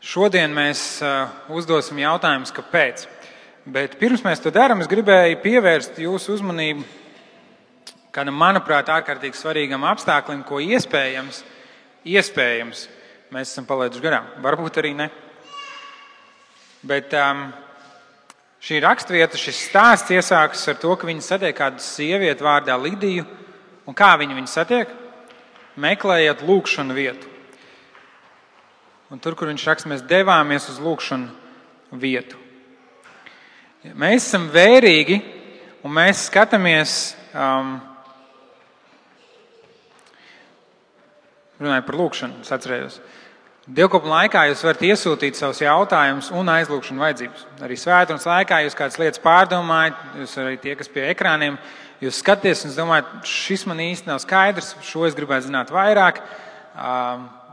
Šodien mēs uzdosim jautājumus, kāpēc. Bet pirms mēs to darām, es gribēju pievērst jūsu uzmanību kādam, manuprāt, ārkārtīgi svarīgam apstāklim, ko iespējams, mēs esam palaiduši garām. Varbūt arī ne. Bet šī rakstvieta, šis stāsts iesākas ar to, ka viņi satiek kādu sievieti vārdā Lidiju. Un kā viņi satiek? Meklējot lūgšanu vietu. Un tur, kur viņš raksta, mēs devāmies uz lūgšanu vietu. Mēs esam vērīgi un mēs skatāmies, runāju par lūgšanu, es atcerējos. Dievkalpošanas laikā jūs varat iesūtīt savus jautājumus un aizlūgšanu vajadzības. Arī svētdienas laikā jūs kādas lietas pārdomājat, jūs arī tie, kas pie ekrāniem, jūs skaties un domājat, šis man īsti nav skaidrs, šo es gribētu zināt vairāk,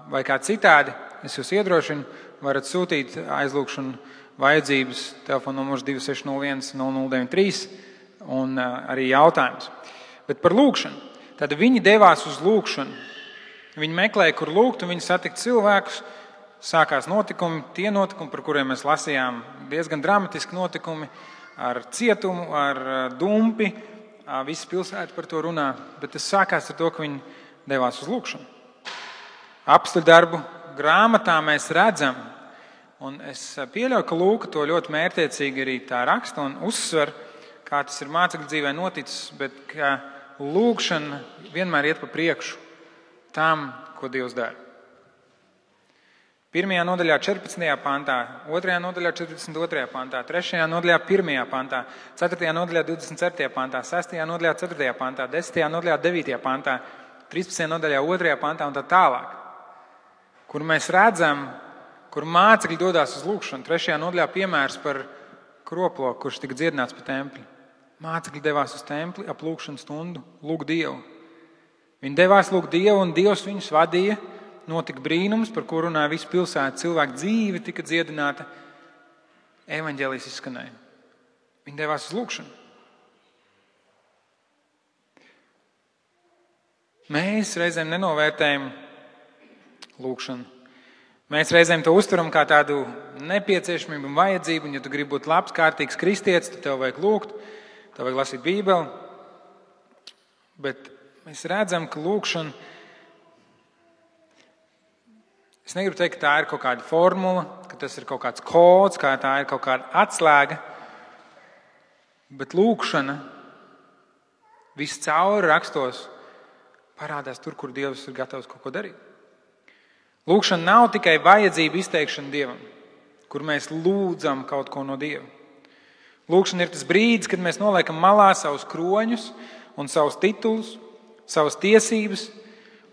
vai kā citādi. Es jūs iedrošinu, varat sūtīt aizlūgšanu vajadzības, telefona numurs 2601 0093 un arī jautājums. Bet par lūgšanu. Tad viņi devās uz lūgšanu. Viņi meklēja, kur lūgt, un viņi satika cilvēkus. Sākās notikumi, tie notikumi, par kuriem mēs lasījām, diezgan dramatiski notikumi ar cietumu, ar dumpi. Visi pilsēta par to runā, bet tas sākās ar to, ka viņi devās uz lūgšanu. Apstuļu darbu grāmatā mēs redzam, un es pieļauju, ka Lūka to ļoti mērķiecīgi arī tā raksta un uzsver, kā tas ir mācekļu dzīvē noticis, bet ka lūgšana vienmēr iet pa priekšu tam, ko Dievs dara. 1. nodaļā 14. pantā, 2. nodaļā 42. pantā, 3. nodaļā 1. pantā, 4. nodaļā 27. pantā, 6. nodaļā 4. pantā, 10. nodaļā 9. pantā, 13. nodaļā 2. pantā un tā tālāk. Kur mēs redzam, kur mācekļi dodās uz lūgšanu. 3. nodaļā piemērs par kroploku, kurš tika dziedināts pa templi. Mācekļi devās uz templi ap lūgšanu stundu, lūgt Dievu. Viņi devās lūgt Dievu, un Dievs viņus vadīja. Notika brīnums, par ko runāja visu pilsētu. Cilvēku dzīve tika dziedināta. Evaņģēlijs izskanēja. Viņi devās uz lūgšanu. Mēs reizēm nenovērtējam lūgšanu. Mēs reizēm to uztveram kā tādu nepieciešamību un vajadzību, un ja tu gribi būt labs, kārtīgs kristietis, tad tev vajag lūgt, tev vajag lasīt Bībeli. Bet mēs redzam, ka lūgšana, es negribu teikt, ka tā ir kaut kāda formula, ka tas ir kaut kāds kods, kā tā ir kaut kāda atslēga, bet lūgšana viscauri rakstos parādās tur, kur Dievs ir gatavs kaut ko darīt. Lūgšana nav tikai vajadzība izteikšana Dievam, kur mēs lūdzam kaut ko no Dieva. Lūgšana ir tas brīdis, kad mēs noliekam malā savus kroņus un savus titulus, savas tiesības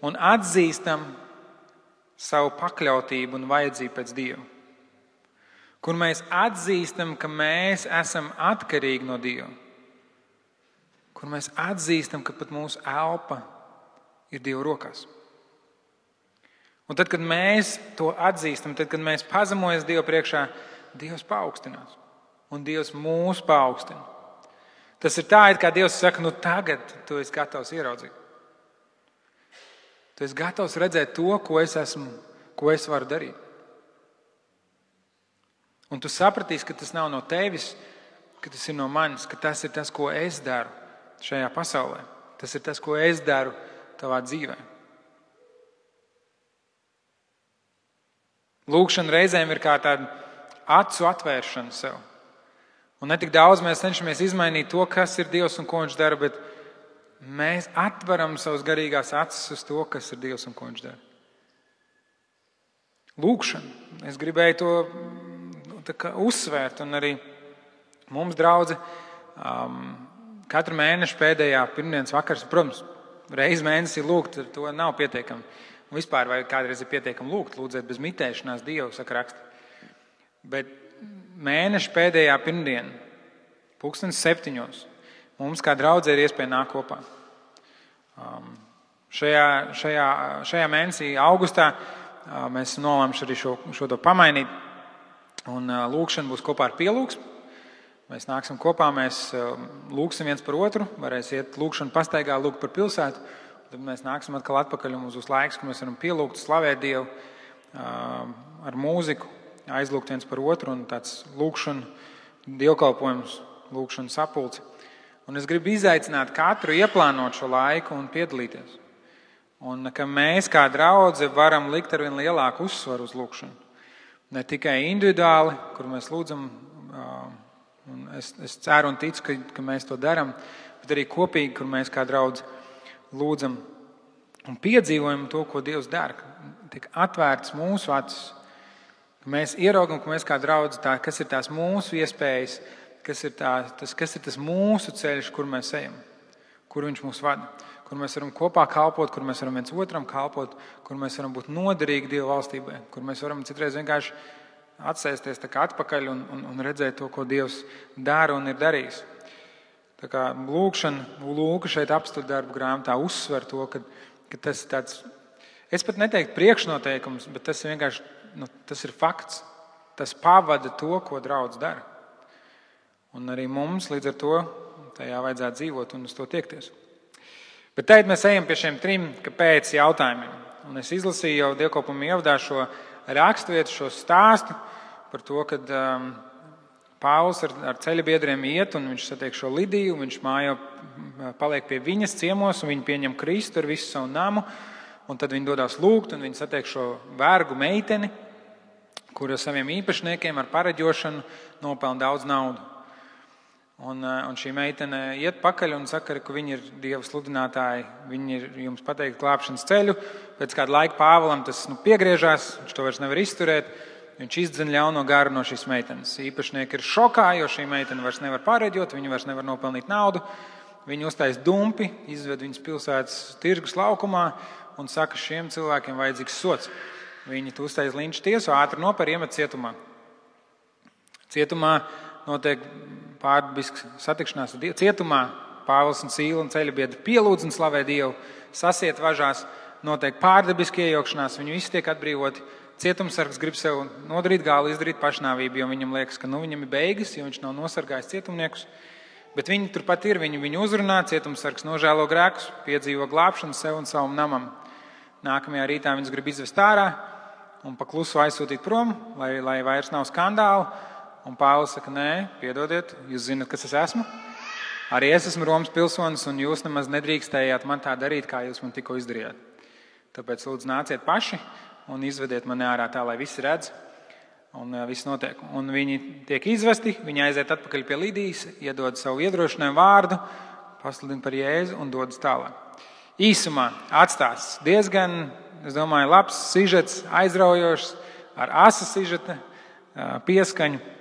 un atzīstam savu pakļautību un vajadzību pēc Dieva. Kur mēs atzīstam, ka mēs esam atkarīgi no Dieva. Kur mēs atzīstam, ka pat mūsu elpa ir Dieva rokās. Un tad, kad mēs to atzīstam, tad, kad mēs pazemojamies Dievu priekšā, Dievs paaugstinās. Un Dievs mūs paaugstina. Tas ir tā, it kā Dievs saka, nu tagad tu esi gatavs ieraudzīt. Tu esi gatavs redzēt to, ko es esmu, ko es varu darīt. Un tu sapratīsi, ka tas nav no tevis, ka tas ir no manis, ka tas ir tas, ko es daru šajā pasaulē. Tas ir tas, ko es daru tavā dzīvē. Lūgšana reizēm ir kā tāda acu atvēršana sev. Un ne tik daudz mēs cenšamies izmainīt to, kas ir Dievs un ko viņš dara, bet mēs atveram savas garīgās acis uz to, kas ir Dievs un ko viņš dara. Lūgšana. Es gribēju to uzsvērt, un arī mums, draudze, katru mēnešu pēdējā pirmdienas vakars, protams, reiz mēnesī lūgt, to nav pietiekami. Un vispār vai kādreiz ir pietiekami lūgt, lūdzēt bez mitēšanās Dievu, saka raksti. Bet mēneša pēdējā pirmdiena, 7:00, mums kā draudzē ir iespēja nākt kopā. Šajā mēnesī, augustā, mēs nolēmuši arī šo to pamainīt. Un lūgšana būs kopā ar pielūgsmu. Mēs nāksim kopā, mēs lūgsim viens par otru, varēs iet lūgšanu pastaigā, lūgt par pilsētu. Tad mēs nāksim atkal atpakaļ un mums būs laiks, ka mēs varam pielūgt, slavēt Dievu ar mūziku, aizlūgt viens par otru un tāds lūgšana, dievkalpojums, lūgšana sapulce. Un es gribu izaicināt katru ieplānot šo laiku un piedalīties. Un ka mēs kā draudze varam likt ar vien lielāku uzsvaru uz lūgšanu. Ne tikai individuāli, kur mēs lūdzam, un es ceru un ticu, ka mēs to darām, bet arī kopīgi, kur mēs kā draudze lūdzam un piedzīvojam to, ko Dievs dara. Tiek atvērts mūsu acis, ka mēs ieraugam, ka mēs kā draudze, kas ir tās mūsu iespējas, kas ir tas mūsu ceļš, kur mēs ejam, kur viņš mūs vada, kur mēs varam kopā kalpot, kur mēs varam viens otram kalpot, kur mēs varam būt noderīgi Dieva valstībai, kur mēs varam citreiz vienkārši atsēsties tā kā atpakaļ un redzēt to, ko Dievs dara un ir darījis. Tā kā lūkšana, Lūka šeit apstākļu darbu grāmatā uzsver to, ka tas ir tāds, es pat neteiktu priekšnoteikums, bet tas ir vienkārši, tas ir fakts. Tas pavada to, ko draudz dara. Un arī mums līdz ar to tajā vajadzētu dzīvot un uz to tiekties. Bet tagad mēs ejam pie šiem 3 kāpēc jautājumiem. Un es izlasīju jau dievkalpojuma ievadā šo raksturvietu, šo stāstu par to, kad Pāvils ar ceļabiedriem iet un viņš satiek šo Lidiju, un viņš mājā paliek pie viņas ciemos un viņi pieņem Kristu ar visu savu namu. Un tad viņi dodās lūgt un viņi satiek šo vergu meiteni, kur ar saviem īpašniekiem ar pareģošanu nopelna daudz naudu. Un šī meitene iet pakaļ un saka, ka viņi ir Dieva sludinātāji, viņi ir jums pateikt glābšanas ceļu. Pēc kāda laika Pāvilam tas piegriežās, viņš to vairs nevar izturēt, viņš izdzen ļauno garu no šīs meitenes. Īpašnieki ir šokā, jo šī meitene vairs nevar pareģot, viņi vairs nevar nopelnīt naudu. Viņi uztais dumpi, izved viņas pilsētas tirgus laukumā un saka, šiem cilvēkiem vajadzīgs sots. Viņi uztais linču tiesu, ātri noper, iemet cietumā. Cietumā notiek pārdabisks satikšanās ar Dievu. Cietumā Pāvils un Sīla un ceļabiedri pielūdz un slavē Dievu, sasiet važās, notiek pārdabiski iejaukšanās, viņi visi tiek atbrīvoti. Cietumsargs grib sev nodarīt gālu, izdarīt pašnāvību, jo viņam liekas, ka viņam ir beigas, jo viņš nav nosargājis cietumniekus. Bet viņi turpat ir, viņu uzrunā, cietumsargs nožēlo grēkus, piedzīvo glābšanu sev un savam namam. Nākamajā rītā viņus grib izvest ārā un pa klusu aizsūtīt prom, lai vairs nav skandālu. Un Pāvils saka, nē, piedodiet, jūs zināt, kas es esmu. Arī es esmu Romas pilsonis, un jūs nemaz nedrīkstējāt man tā darīt, kā jūs man tikko izdarījāt. Tāpēc lūdzu nāciet paši un izvediet mani ārā tā, lai visi redz, un viss notiek. Un viņi tiek izvesti, viņi aiziet atpakaļ pie Lidijas, iedod savu iedrošinājumu vārdu, pasludina par Jēzu un dodas tālāk. Īsumā atstāsts diezgan, es domāju, labs sižets, aizraujošs, ar asa sižeta pieskaņu.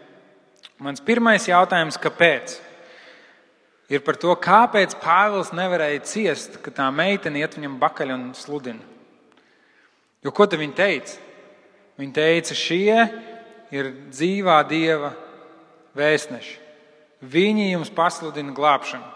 Mans pirmais jautājums, kāpēc? Ir par to, kāpēc Pāvils nevarēja ciest, ka tā meitene iet viņam bakaļ un sludina. Jo ko tad viņa teica? Viņa teica, šie ir dzīvā Dieva vēstneši. Viņi jums pasludina glābšanu.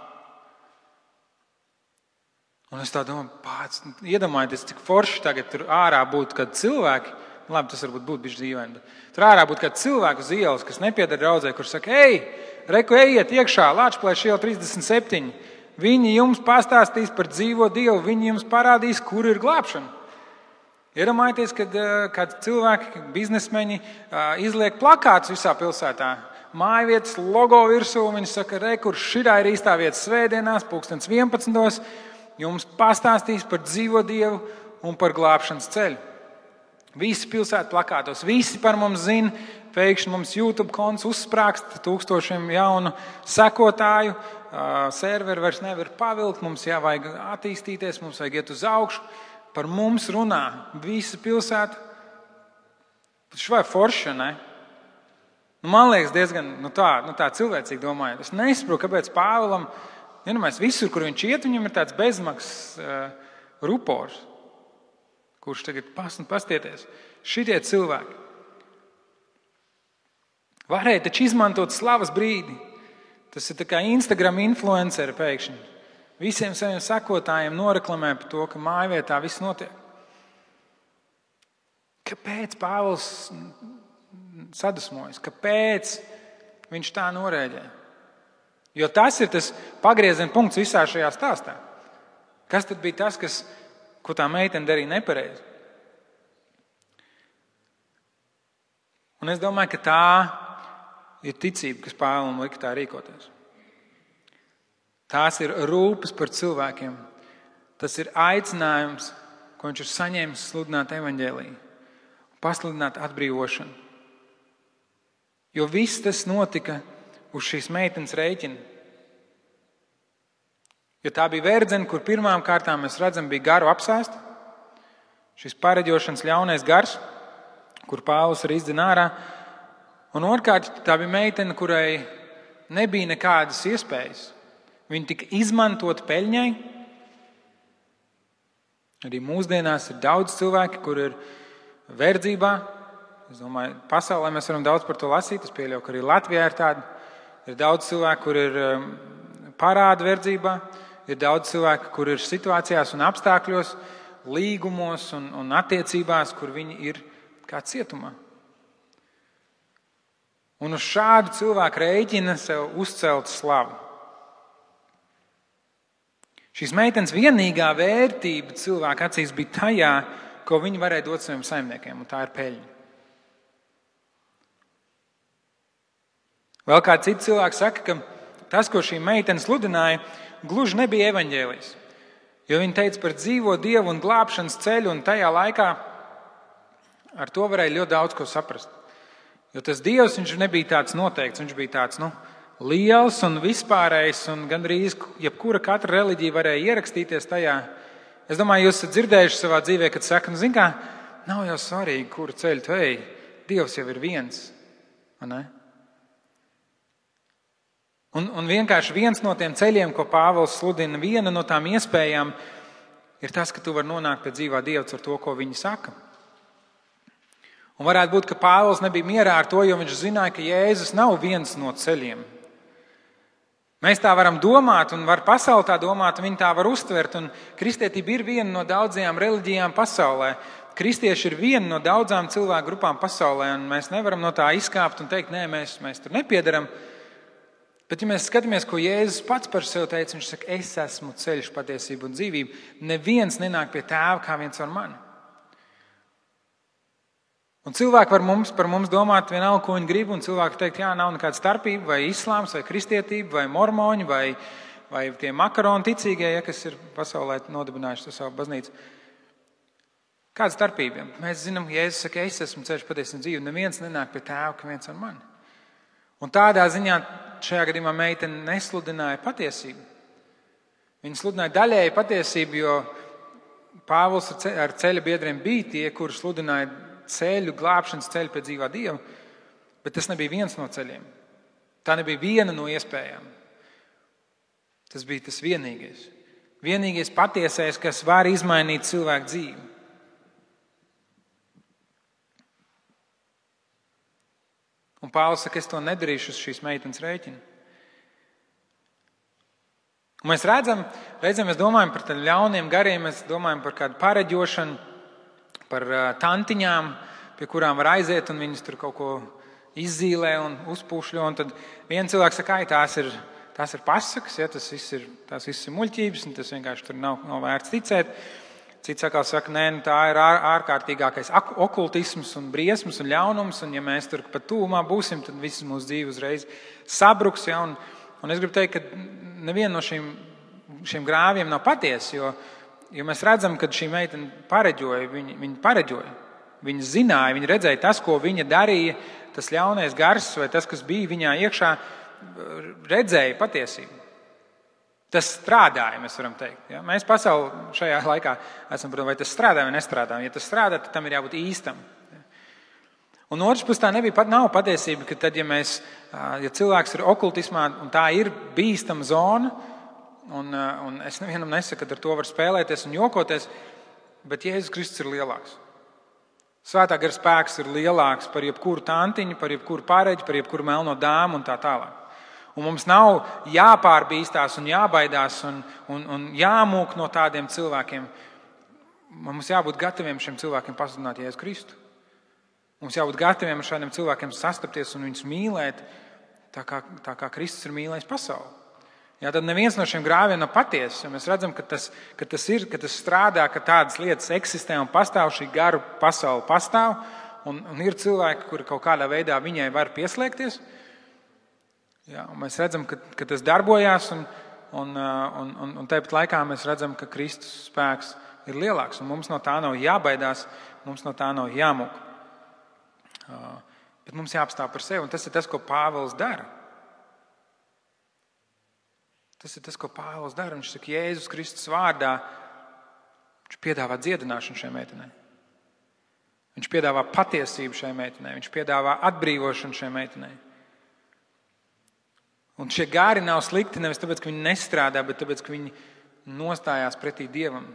Un es tā domāju, iedomājieties, cik forši tagad tur ārā būtu kādi cilvēki. Labi, tas varbūt būtu bišķi dīvaini, bet tur ārā būtu kāds cilvēks uz ielas, kas nepieder draudzē, kurš saka, reku, ejiet iekšā, Lāčplēša iela 37. Viņi jums pastāstīs par dzīvo Dievu, viņi jums parādīs, kur ir glābšana. Iedomājieties, kad kādi cilvēki, biznesmeņi izliek plakātus visā pilsētā. Mājvietas logo virsū, viņi saka, reku, šitā ir īstā vieta svētdienās, 11. Jums pastāstīs par dzīvo Dievu un par glābšanas ceļu. Visi pilsētu plakātos, visi par mums zina, pēkšņi mums YouTube konts uzsprāgst 1000 jaunu sekotāju, serveri vairs nevar pavilkt, mums jāvajag attīstīties, mums vajag iet uz augšu, par mums runā visa pilsēta. Švai forša, ne? Man liekas diezgan tā cilvēcīgi domājot. Es nesaprotu, kāpēc Pāvilam, visur, kur viņš iet, viņam ir tāds bezmaksas rupors. Kurš tagad pastieties. Šitie cilvēki varēja taču izmantot slavas brīdi. Tas ir tā kā Instagram influenceri pēkšņi. Visiem saviem sekotājiem noreklamē par to, ka mājvietā viss notiek. Kāpēc Pāvils sadusmojas? Kāpēc viņš tā norēģē? Jo tas ir tas pagrieziena punkts visā šajā stāstā. Kas tad bija tas, ko tā meitene darīja nepareizi? Un es domāju, ka tā ir ticība, kas Pāvilam lika tā rīkoties. Tās ir rūpes par cilvēkiem. Tas ir aicinājums, ko viņš ir saņēmis sludināt evaņģēliju, pasludināt atbrīvošanu. Jo viss tas notika uz šīs meitenes rēķina. Jo tā bija verdzene, kur pirmām kārtām mēs redzam, bija garu apsēsta. Šis pareģošanas ļaunais gars, kur Pāvils arī izdzina ārā. Un otrkārt, tā bija meitene, kurai nebija nekādas iespējas. Viņa tika izmantot peļņai. Arī mūsdienās ir daudz cilvēki, kur ir verdzībā. Es domāju, pasaulē mēs varam daudz par to lasīt. Es pieļauju, ka arī Latvijā ir tādi. Ir daudz cilvēku, kur ir parāda verdzībā. Ir daudz cilvēku, kur ir situācijās un apstākļos, līgumos un attiecībās, kur viņi ir kā cietumā. Un uz šādu cilvēku rēķina sev uzcelt slavu. Šīs meitenes vienīgā vērtība cilvēka acīs bija tajā, ko viņi varēja dot saviem saimniekiem, un tā ir peļņa. Vēl kāds cits cilvēks saka, ka tas, ko šī meitene sludināja, gluži nebija evaņģēlijs. Jo viņa teica par dzīvo Dievu un glābšanas ceļu, un tajā laikā ar to varēja ļoti daudz ko saprast. Jo tas Dievs, viņš nebija tāds noteikts, viņš bija tāds, liels un vispārējs, un gandrīz jebkura katra reliģija varēja ierakstīties tajā. Es domāju, jūs esat dzirdējuši savā dzīvē, kad saka, zin kā, nav jau svarīgi, kuru ceļu tu ej, Dievs jau ir viens. Ne? Un vienkārši viens no tiem ceļiem, ko Pāvils sludina, viena no tām iespējām ir tas, ka tu vari nonākt pie dzīvā Dieva ar to, ko viņi saka. Un varētu būt, ka Pāvils nebija mierā ar to, jo viņš zināja, ka Jēzus nav viens no ceļiem. Mēs tā varam domāt, un var pasauli tā domāt, un viņi tā var uztvert. Un kristietība ir viena no daudzajām reliģijām pasaulē. Kristieši ir viena no daudzām cilvēku grupām pasaulē, un mēs nevaram no tā izkāpt un teikt, nē, mēs tur nepiedaram. Bet, ja mēs skatāmies, ko Jēzus pats par sevi teica, viņš saka, es esmu ceļš, patiesība un dzīvība. Neviens nenāk pie Tēva kā viens ar mani. Un cilvēki var par mums domāt vienalga, ko viņi grib, un cilvēki teikt, jā, nav nekāda starpība, vai islāms, vai kristietība, vai mormoņi, vai tie makaroni ticīgie, kas ir pasaulē nodibinājuši to savu baznīcu. Kāda starpība? Mēs zinām, Jēzus saka, es esmu ceļš, patiesība un dzīve, neviens nenāk pie Tēva kā viens ar mani. Un tādā ziņā šajā gadījumā meitene nesludināja patiesību. Viņa sludināja daļēji patiesību, jo Pāvils ar ceļa biedriem bija tie, kuri sludināja ceļu, glābšanas ceļu pie dzīvā Dieva, bet tas nebija viens no ceļiem. Tā nebija viena no iespējām. Tas bija tas vienīgais. Vienīgais patiesais, kas var izmainīt cilvēku dzīvi. Un Pāvils saka, es to nedarīšu uz šīs meitenes rēķina. Un mēs redzam, mēs domājam par tādiem ļauniem gariem, mēs domājam par kādu pareģošanu, par tantiņām, pie kurām var aiziet, un viņas tur kaut ko izzīlē un uzpūšļo. Un tad viens cilvēks saka, tās ir pasakas, ja, tās viss ir muļķības, un tas vienkārši tur nav vērts ticēt. Cits atkal saka, nē, tā ir ārkārtīgākais okultisms un briesmas un ļaunums, un ja mēs tur pat tūmā būsim, tad viss mūsu dzīve uzreiz sabruks. Ja, un es gribu teikt, ka neviena no šiem grāviem nav patiesa, jo mēs redzam, ka šī meitene pareģoja, viņa pareģoja. Viņa zināja, viņa redzēja tas, ko viņa darīja, tas ļaunais gars vai tas, kas bija viņā iekšā, redzēja patiesību. Tas strādāja, mēs varam teikt. Ja? Mēs pasauli šajā laikā esam, protams, vai tas strādā vai nestrādā. Ja tas strādā, tad tam ir jābūt īstam. Ja? Un otrs puses tā nav patiesība, ka tad, ja cilvēks ir okultismā un tā ir bīstama zona, un es nevienam nesaku, ka ar to var spēlēties un jokoties, bet Jēzus Kristus ir lielāks. Svētā gara spēks ir lielāks par jebkuru tantiņu, par jebkuru pareģi, par jebkuru melno dāmu un tā tālāk. Un mums nav jāpārbīstās un jābaidās un jāmūk no tādiem cilvēkiem. Mums jābūt gataviem šiem cilvēkiem pasludināt Jēzu Kristu. Mums jābūt gataviem ar šādiem cilvēkiem sastapties un viņus mīlēt tā kā Kristus ir mīlējis pasauli. Jā, tad neviens no šiem grāviem nav patiesa. Mēs redzam, ka tas strādā, ka tādas lietas eksistē un pastāv, šī garu pasaule pastāv, un ir cilvēki, kuri kaut kādā veidā viņai var pieslēgties. Jā, un mēs redzam, ka tas darbojās, un tāpat laikā mēs redzam, ka Kristus spēks ir lielāks, un mums no tā nav jābaidās, mums no tā nav jāmūk. Bet mums jāapstāv par sevi, un tas ir tas, ko Pāvils dara. Tas ir tas, ko Pāvils dara. Viņš saka, Jēzus Kristus vārdā, viņš piedāvā dziedināšanu šai meitenei. Viņš piedāvā patiesību šai meitenei. Viņš piedāvā atbrīvošanu šai meitenei. Un šie gāri nav slikti nevis tāpēc, ka viņi nestrādā, bet tāpēc, ka viņi nostājās pretī Dievam.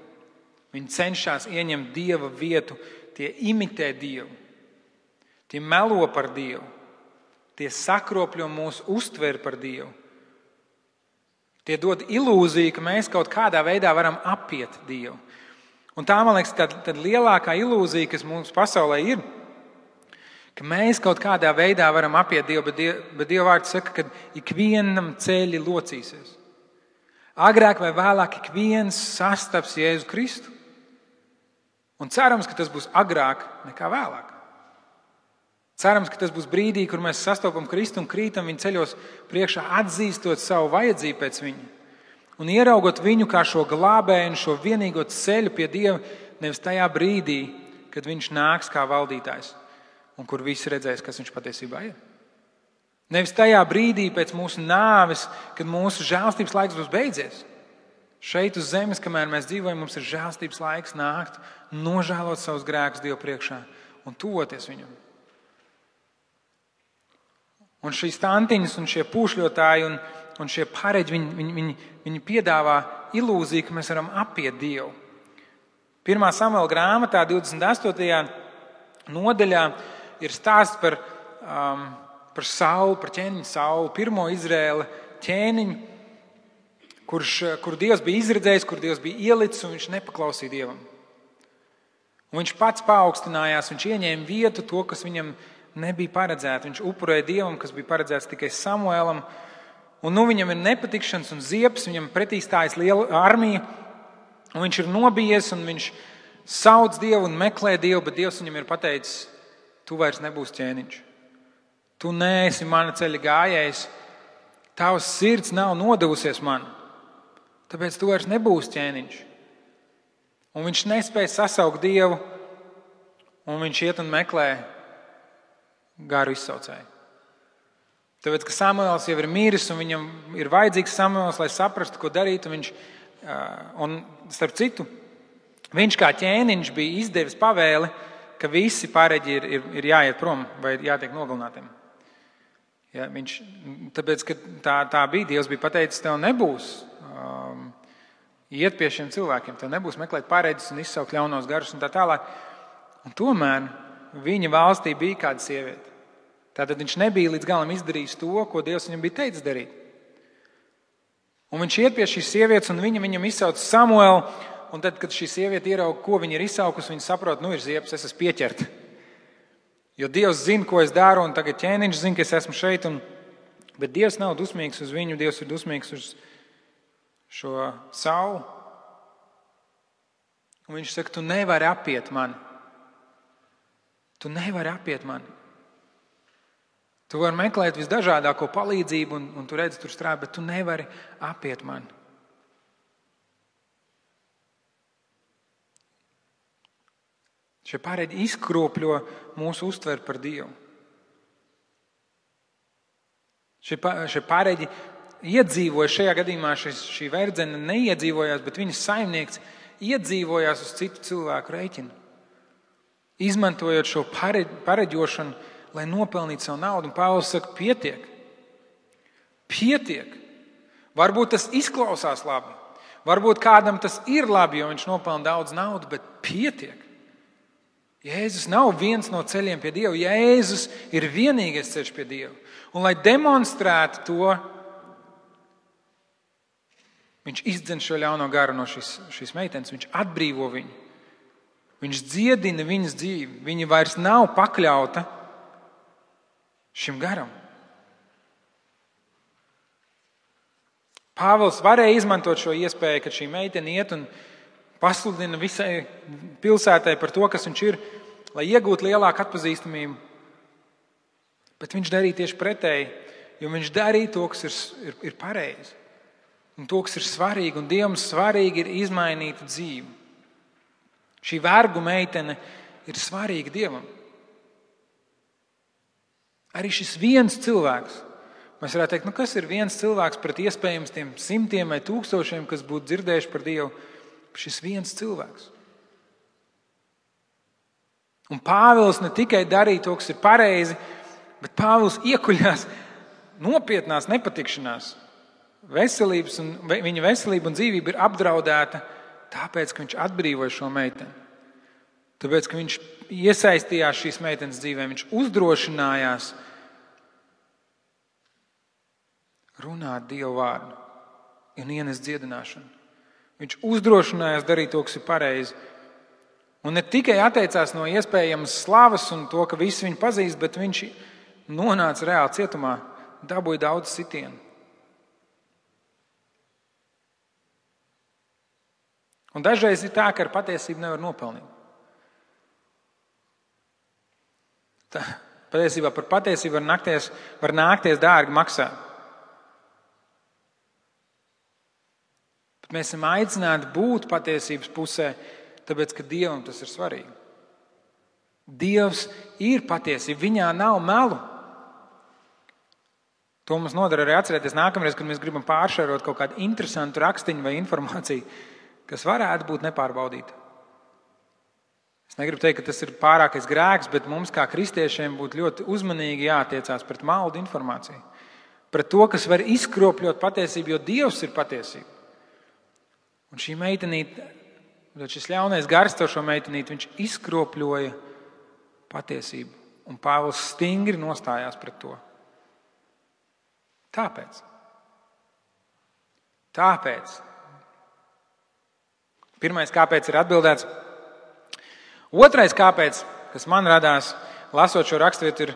Viņi cenšas ieņemt Dieva vietu, tie imitē Dievu. Tie melo par Dievu. Tie sakropļo mūsu uztveri par Dievu. Tie dod ilūziju, ka mēs kaut kādā veidā varam apiet Dievu. Un tā, man liekas, tad lielākā ilūzija, kas mums pasaulē ir, ka mēs kaut kādā veidā varam apiet Dievu, bet Dieva vārds saka, ka ikvienam ceļi locīsies. Agrāk vai vēlāk ik viens sastaps Jēzu Kristu. Un cerams, ka tas būs agrāk nekā vēlāk. Cerams, ka tas būs brīdī, kur mēs sastopam Kristu un krītam viņa ceļos priekšā, atzīstot savu vajadzību pēc viņa. Un ieraugot viņu kā šo glābēju un šo vienīgo ceļu pie Dieva, nevis tajā brīdī, kad viņš nāks kā valdītājs un kur visi redzēs, kas viņš patiesībā ir. Nevis tajā brīdī pēc mūsu nāves, kad mūsu žēlstības laiks būs beidzies. Šeit uz zemes, kamēr mēs dzīvojam, mums ir žēlstības laiks nākt, nožēlot savus grēkus Dievu priekšā un tuvoties viņam. Un šīs tantiņas un šie pūšļotāji un šie pareģi, viņi piedāvā ilūziju, ka mēs varam apiet Dievu. 1. Samuela grāmatā 28. nodaļā ir stāsts par Saulu, par ķēniņu Saulu, pirmo Izraēla ķēniņu, kur Dievs bija izredzējis, kur Dievs bija ielicis, un viņš nepaklausīja Dievam. Un viņš pats paaugstinājās, viņš ieņēma vietu to, kas viņam nebija paredzēts. Viņš upurēja Dievam, kas bija paredzēts tikai Samuēlam. Un viņam ir nepatikšanas un ziepes, viņam pretī stājas liela armija. Un viņš ir nobijies un viņš sauc Dievu un meklē Dievu, bet Dievs viņam ir pateicis, tu vairs nebūsi ķēniņš. Tu neesi mana ceļa gājējs. Tavs sirds nav nodevusies man. Tāpēc tu vairs nebūsi ķēniņš. Un viņš nespēja sasaukt Dievu, un viņš iet un meklē garu izsaucēju. Tāpēc, ka Samuēls jau ir miris, un viņam ir vajadzīgs Samuēls, lai saprastu, ko darīt. Un starp citu, viņš kā ķēniņš bija izdevis pavēli, ka visi pareģi ir jāiet prom vai jātiek nogalinātiem. Ja, tāpēc, ka tā bija, Dievs bija pateicis, tev nebūs iet pie šiem cilvēkiem, tev nebūs meklēt pareģis un izsaukt ļaunos garus un tā tālāk. Un tomēr viņa valstī bija kāda sieviete. Tātad viņš nebija līdz galam izdarījis to, ko Dievs viņam bija teicis darīt. Un viņš iet pie šīs sievietes, un viņam izsauc Samuelu, un tad, kad šī sieviete ierauga, ko viņa ir izsaukusi, viņa saprot, ir ziepes, es esmu pieķerta. Jo Dievs zina, ko es daru, un tagad ķēniņš zina, ka es esmu šeit, bet Dievs nav dusmīgs uz viņu, Dievs ir dusmīgs uz šo Saulu. Un viņš saka, tu nevari apiet mani. Tu nevari apiet mani. Tu vari meklēt visdažādāko palīdzību, un tu redzi, tur strādā, bet tu nevari apiet mani. Šie pareģi izkropļo mūsu uztveri par Dievu. Šie pareģi iedzīvoja, šajā gadījumā šī verdzene neiedzīvojās, bet viņas saimnieks iedzīvojās uz citu cilvēku rēķinu. Izmantojot šo pareģošanu, lai nopelnītu savu naudu. Un Pāvils saka, pietiek. Pietiek. Varbūt tas izklausās labi. Varbūt kādam tas ir labi, jo viņš nopelna daudz naudu, bet pietiek. Jēzus nav viens no ceļiem pie Dieva. Jēzus ir vienīgais ceļš pie Dieva. Un lai demonstrētu to, viņš izdzen šo ļauno garu no šīs meitenes, viņš atbrīvo viņu. Viņš dziedina viņas dzīvi. Viņa vairs nav pakļauta šim garam. Pāvils varēja izmantot šo iespēju, kad šī meitene iet un pasludina visai pilsētai par to, kas viņš ir. lai iegūtu lielāku atpazīstamību. Bet viņš darīja tieši pretēji, jo viņš darīja to, kas ir pareizi. Un to, kas ir svarīgi, un Dievam svarīgi ir izmainīt dzīvi. Šī vergu meitene ir svarīga Dievam. Arī šis viens cilvēks, mēs varētu teikt, kas ir viens cilvēks pret iespējams tiem simtiem vai tūkstošiem, kas būtu dzirdējuši par Dievu, šis viens cilvēks. Un Pāvils ne tikai darīja to, kas ir pareizi, bet Pāvils iekuļās nopietnās nepatikšanās. Viņa veselība un dzīvība ir apdraudēta tāpēc, ka viņš atbrīvoja šo meiteni. Tāpēc, ka viņš iesaistījās šīs meitenes dzīvē, viņš uzdrošinājās runāt Dievu vārdu un ienest dziedināšanu. Viņš uzdrošinājās darīt to, kas ir pareizi. Un ne tikai atteicās no iespējamas slavas un to, ka visi viņu pazīst, bet viņš nonāca reāli cietumā, dabūja daudz sitienu. Un dažreiz ir tā, ka ar patiesību nevar nopelnīt. Patiesībā par patiesību var nākties dārgi maksāt. Bet mēs esam aicināti būt patiesības pusē, tāpēc, ka Dievam tas ir svarīgi. Dievs ir patiesība, viņā nav melu. To mums nodara arī atcerēties nākamreiz, kad mēs gribam pāršērot kaut kādu interesantu rakstiņu vai informāciju, kas varētu būt nepārbaudīta. Es negribu teikt, ka tas ir pārākais grēks, bet mums kā kristiešiem būtu ļoti uzmanīgi jātiecās pret maldu informāciju. Pret to, kas var izkropļot patiesību, jo Dievs ir patiesība. Un šī meitenīte, šis ļaunais gars ar šo meitenīti, viņš izkropļoja patiesību. Un Pāvils stingri nostājās pret to. Tāpēc. Pirmais, kāpēc ir atbildēts. Otrais, kāpēc, kas man radās, lasot šo raksturvietu,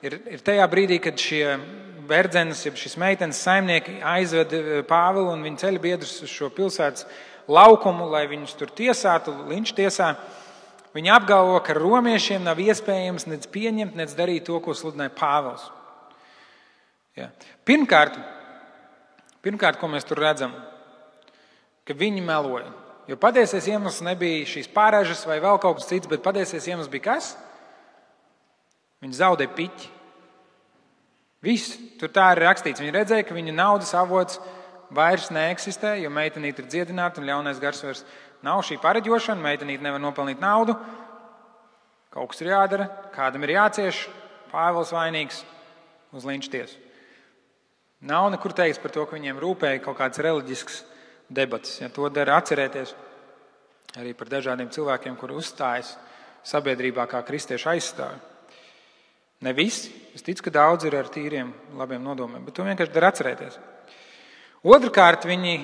ir tajā brīdī, kad šie verdzenes, šis meitenes saimnieki aizved Pāvilu un viņa ceļa biedrus uz šo pilsētas laukumu, lai viņus tur tiesātu, linčtiesā. Viņi apgalvo, ka romiešiem nav iespējams nec pieņemt, nec darīt to, ko sludināja Pāvils. Ja. Pirmkārt, ko mēs tur redzam, ka viņi meloja. Jo patiesais iemesls nebija šīs pārēžas vai vēl kaut kas cits, bet patiesais iemesls bija kas? Viņi zaudēja piķi. Viss, tur tā ir rakstīts. Viņi redzēja, ka viņa naudas avots vairs neeksistē, jo meitenīte ir dziedināta un ļaunais gars vairs nav šī pareģošana, meitenīte nevar nopelnīt naudu. Kaut kas ir jādara, kādam ir jācieš, Pāvils vainīgs uz linčtiesu. Nav nekur teiks par to, ka viņiem rūpēja kaut kāds reliģisks debatas. Ja, to dara atcerēties arī par dažādiem cilvēkiem, kuri uzstājas sabiedrībā kā kristiešu aizstāvi. Ne visi, es ticu, ka daudz ir ar tīriem, labiem nodomiem, bet to vienkārši dara atcerēties. Otrkārt, viņi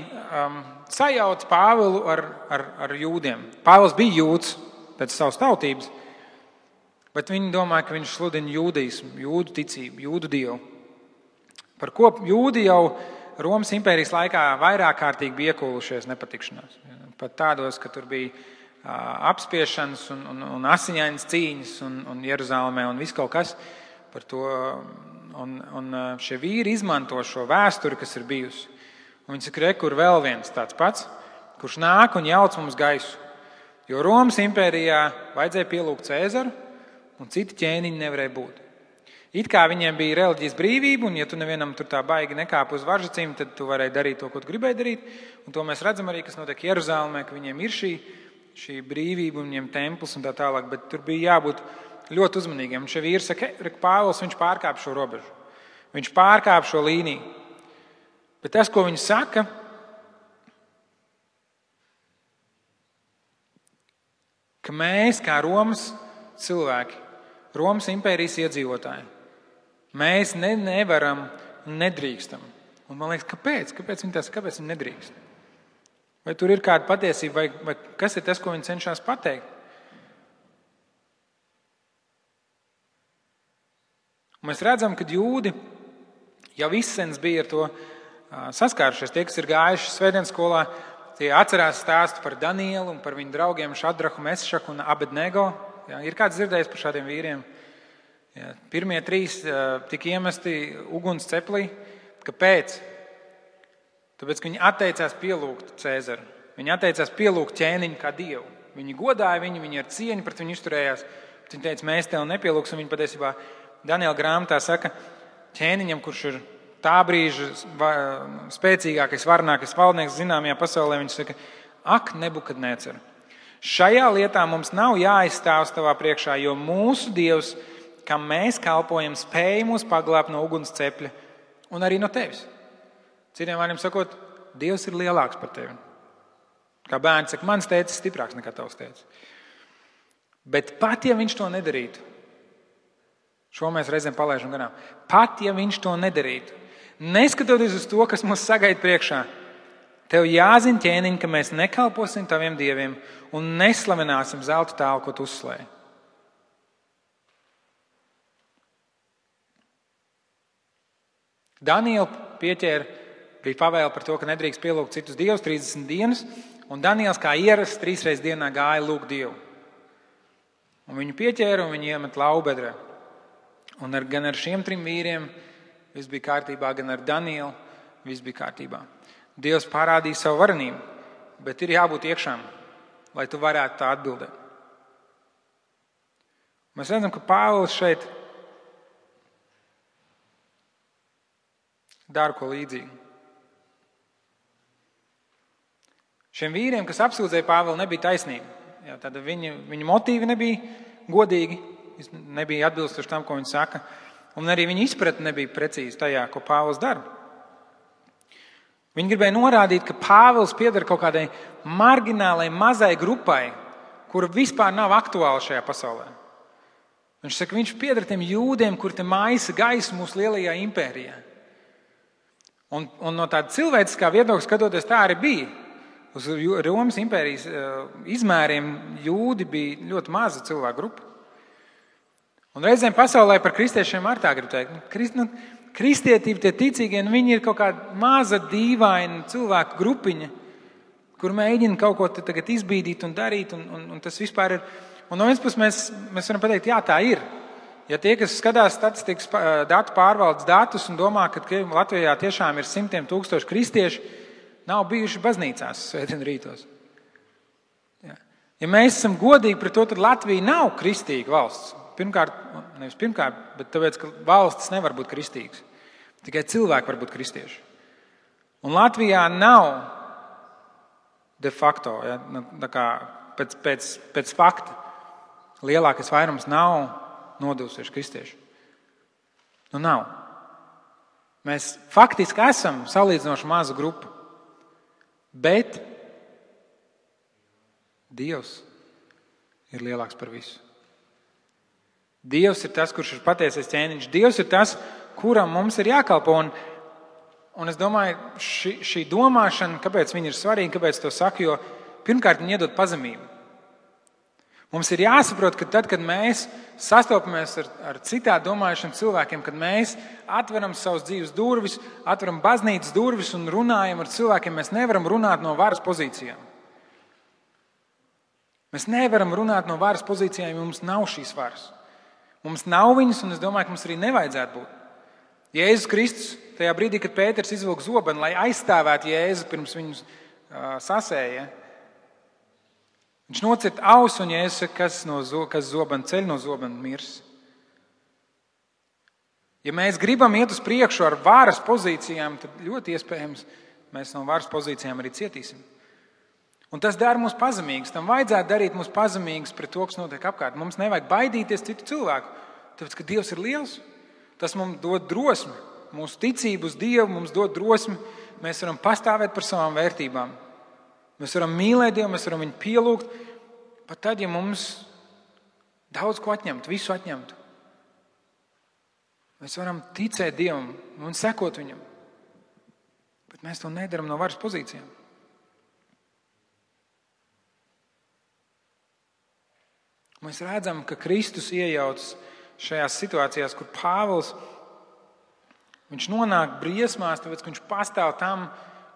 sajauc Pāvilu ar jūdiem. Pāvils bija jūds pēc savas tautības, bet viņi domāja, ka viņš sludina jūdismu, jūdu ticību, jūdu dievu. Par ko jūdi jau Romas impērijas laikā vairāk kārtīgi bija iekūlušies nepatikšanās. Pat tādos, ka tur bija apspiešanas un asiņainas cīņas un Jeruzālēmē un viss kaut kas par to. Un šie vīri izmanto šo vēsturi, kas ir bijusi. Un viņi saka, kur vēl viens tāds pats, kurš nāk un jauc mums gaisu. Jo Romas impērijā vajadzēja pielūgt Cēzaru un citi ķēniņi nevarēja būt. It kā viņiem bija reliģijas brīvība, un ja tu nevienam tur tā baigi nekāp uz varžacīm, tad tu varēji darīt to, ko tu gribēji darīt. Un to mēs redzam arī, kas notiek Jeruzālēmē, ka viņiem ir šī brīvība un viņiem templis un tā tālāk, bet tur bija jābūt ļoti uzmanīgiem. Un šie vīri saka, Pāvils, viņš pārkāp šo robežu. Viņš pārkāp šo līniju. Bet tas, ko viņi saka, ka mēs kā Romas cilvēki, Romas impērijas iedzīvotāji, mēs nevaram un nedrīkstam. Un man liekas, kāpēc? Kāpēc viņi nedrīkst? Vai tur ir kāda patiesība, vai kas ir tas, ko viņi cenšas pateikt? Un mēs redzam, ka jūdi jau izsens bija ar to saskārušies. Tie, kas ir gājuši svētdienas skolā, tie atcerās stāstu par Danielu un par viņu draugiem Šadrahu, Mešaku un Abednego. Ja, ir kāds dzirdējis par šādiem vīriem? Ja, pirmie 3 tika iemesti uguns ceplī. Kāpēc? Tāpēc, ka viņi atteicās pielūgt Cēzaru. Viņi atteicās pielūgt ķēniņu kā dievu. Viņi godāja viņu, viņi ar cieņu pret viņu izturējās. Viņi teica, mēs tev nepielūgsim. Viņi patiesībā Daniela grāmatā saka, ķēniņam, kurš ir tā brīža spēcīgākais, varenākais valdnieks zināmajā pasaulē, viņš saka, ak, Nebukadnecer, šajā lietā mums nav jāizstāvs tavā priekšā, jo mūsu Dievs, kam mēs kalpojam, spēj mūs paglābt no uguns cepļa un arī no tevis. Citiem vārdiem sakot, Dievs ir lielāks par tevi. Kā bērns saka, mans tēcis ir stiprāks nekā tavs tēcis. Bet pat, ja viņš to nedarītu, šo mēs reizēm palaidām garām, pat, ja viņš to nedarītu, neskatoties uz to, kas mums sagaida priekšā, tev jāzina, ķēniņ, ka mēs nekalposim taviem dieviem un neslavināsim zelta tēlu, ko tu uzslēji. Daniela pieķēra, bija pavēle par to, ka nedrīkst pielūgt citus dievus 30 dienas, un Daniels kā ierasts 3 reizes dienā gāja lūgt Dievu. Un viņu pieķēra un viņu iemet laubedrē. Un gan ar šiem 3 vīriem viss bija kārtībā, gan ar Danielu viss bija kārtībā. Dievs parādīja savu varenību, bet ir jābūt iekšām, lai tu varētu tā atbildēt. Mēs redzam, ka Pāvils šeit dara ko līdzīgu. Šiem vīriem, kas apsūdzēja Pāvilu, nebija taisnība. Jā, tad viņa motīvi nebija godīgi, nebija atbilstoši tam, ko viņi saka, un arī viņa izpratne nebija precīzi tajā, ko Pāvils dara. Viņi gribēja norādīt, ka Pāvils pieder kaut kādai marginālai, mazai grupai, kura vispār nav aktuāla šajā pasaulē. Viņš saka, viņš pieder tiem jūdiem, kuri te maisa gaisu mūsu lielajā impērijā. Un no tāda cilvēciskā viedokļa skatoties, tā arī bija. Uz Romas impērijas izmēriem jūdi bija ļoti maza cilvēku grupa. Un reizēm pasaulē par kristiešiem ar tā grib teikt. Kristietība, tie ticīgie, viņi ir kaut kāda maza, dīvaina cilvēku grupiņa, kur mēģina kaut ko tagad izbīdīt un darīt, un tas vispār ir. Un no vienas puses mēs varam pateikt, jā, tā ir. Ja tie, kas skatās statistikas datu pārvaldes datus un domā, ka Latvijā tiešām ir 100 000 kristieši, nav bijuši baznīcās svētdien rītos. Ja mēs esam godīgi pret to, tad Latvija nav kristīga valsts. Nevis pirmkārt, bet tāpēc, ka valstis nevar būt kristīgas. Tikai cilvēki var būt kristieši. Un Latvijā nav de facto, ja, tā kā pēc fakta, lielākais vairums nav nodevusies kristieši. Nav. Mēs faktiski esam salīdzinoši maza grupa. Bet Dievs ir lielāks par visu. Dievs ir tas, kurš ir patiesais ķēniņš. Dievs ir tas, kuram mums ir jākalpo. Un es domāju, šī domāšana, kāpēc viņa ir svarīga, kāpēc to saku, jo pirmkārt viņa iedod pazemību. Mums ir jāsaprot, ka tad, kad mēs sastopamies ar citādi domājušiem cilvēkiem, kad mēs atveram savus dzīves durvis, atveram baznīcas durvis un runājam ar cilvēkiem, mēs nevaram runāt no varas pozīcijām. Mēs nevaram runāt no varas pozīcijām, jo mums nav šīs varas. Mums nav viņas, un es domāju, ka mums arī nevajadzētu būt. Jēzus Kristus, tajā brīdī, kad Pēters izvilka zobenu, lai aizstāvētu Jēzu pirms viņus sasēja, viņš nocirta ausu, un Jēzus saka, kas zobenu ceļ, no zobenu mirs. Ja mēs gribam iet uz priekšu ar varas pozīcijām, tad ļoti iespējams mēs no varas pozīcijām arī cietīsim. Un tas dara mūs pazemīgus. Tam vajadzētu darīt mūs pazemīgus pret to, kas notiek apkārt. Mums nevajag baidīties citu cilvēku, tāpēc, ka Dievs ir liels. Tas mums dod drosmi. Mūsu ticību uz Dievu mums dod drosmi. Mēs varam pastāvēt par savām vērtībām. Mēs varam mīlēt Dievu, mēs varam viņu pielūgt, pat tad, ja mums daudz ko atņemtu, visu atņemtu. Mēs varam ticēt Dievam un sekot viņam, bet mēs to nedaram no varas pozīcijām. Mēs redzam, ka Kristus iejaucas šajās situācijās, kur Pāvils, viņš nonāk briesmās, tāpēc, ka viņš pastāv tam,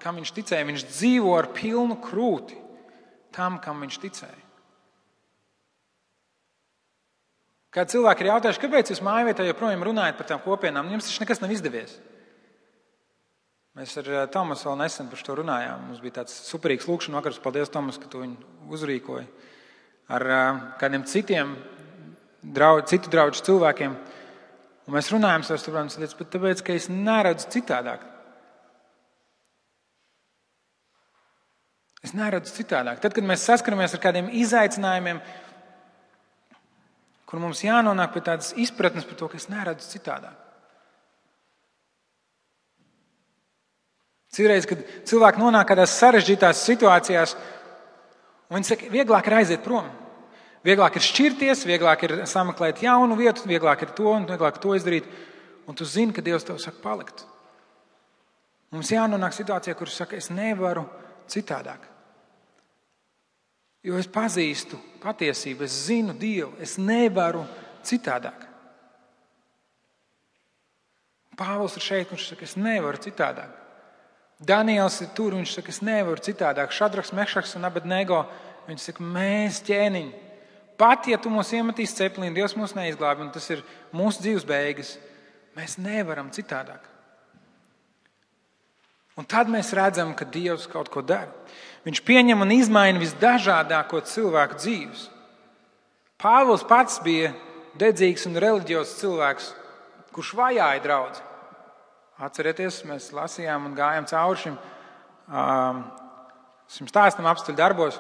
kam viņš ticēja. Viņš dzīvo ar pilnu krūti tam, kam viņš ticēja. Kad cilvēki ir jautājuši, kāpēc jūs mājvietā joprojām runājat par tām kopienām, jums taču nekas nav izdevies. Mēs ar Tomasu vēl nesen par to runājām. Mums bija tāds superīgs lūkšana vakars. Paldies, Tomas, ka tu viņu uzrīkoji. Ar kādiem citu draugu cilvēkiem. Un mēs runājam savas problēmas lietas, bet tāpēc, ka es neredzu citādāk. Es neredzu citādāk. Tad, kad mēs saskaramies ar kādiem izaicinājumiem, kur mums jānonāk pie tādas izpratnes par to, ka es neredzu citādāk. Citreiz, kad cilvēki nonāk kādās sarežģītās situācijās, un viņi saka, vieglāk ir aiziet prom. Vieglāk ir šķirties, vieglāk ir sameklēt jaunu vietu, vieglāk ir to un vieglāk to izdarīt. Un tu zini, ka Dievs tev saka palikt. Mums jānonāk situācijā, kur saka, es nevaru citādāk. Jo es pazīstu patiesību, es zinu Dievu, es nevaru citādāk. Pāvils ir šeit, kurš saka, es nevaru citādāk. Daniels ir tur, viņš saka, es nevaru citādāk. Šadraks, Mešaks un Abednego, viņš saka, mēs ķēniņi. Pat, ja tu mūs iemetīs ceplīni, Dievs mūs neizglābi, un tas ir mūsu dzīves beigas, mēs nevaram citādāk. Un tad mēs redzam, ka Dievs kaut ko dara. Viņš pieņem un izmaina visdažādāko cilvēku dzīves. Pāvils pats bija dedzīgs un reliģiozs cilvēks, kurš vajāja draudzi. Atcerieties, mēs lasījām un gājām cauri šim stāstam apstuļu darbos,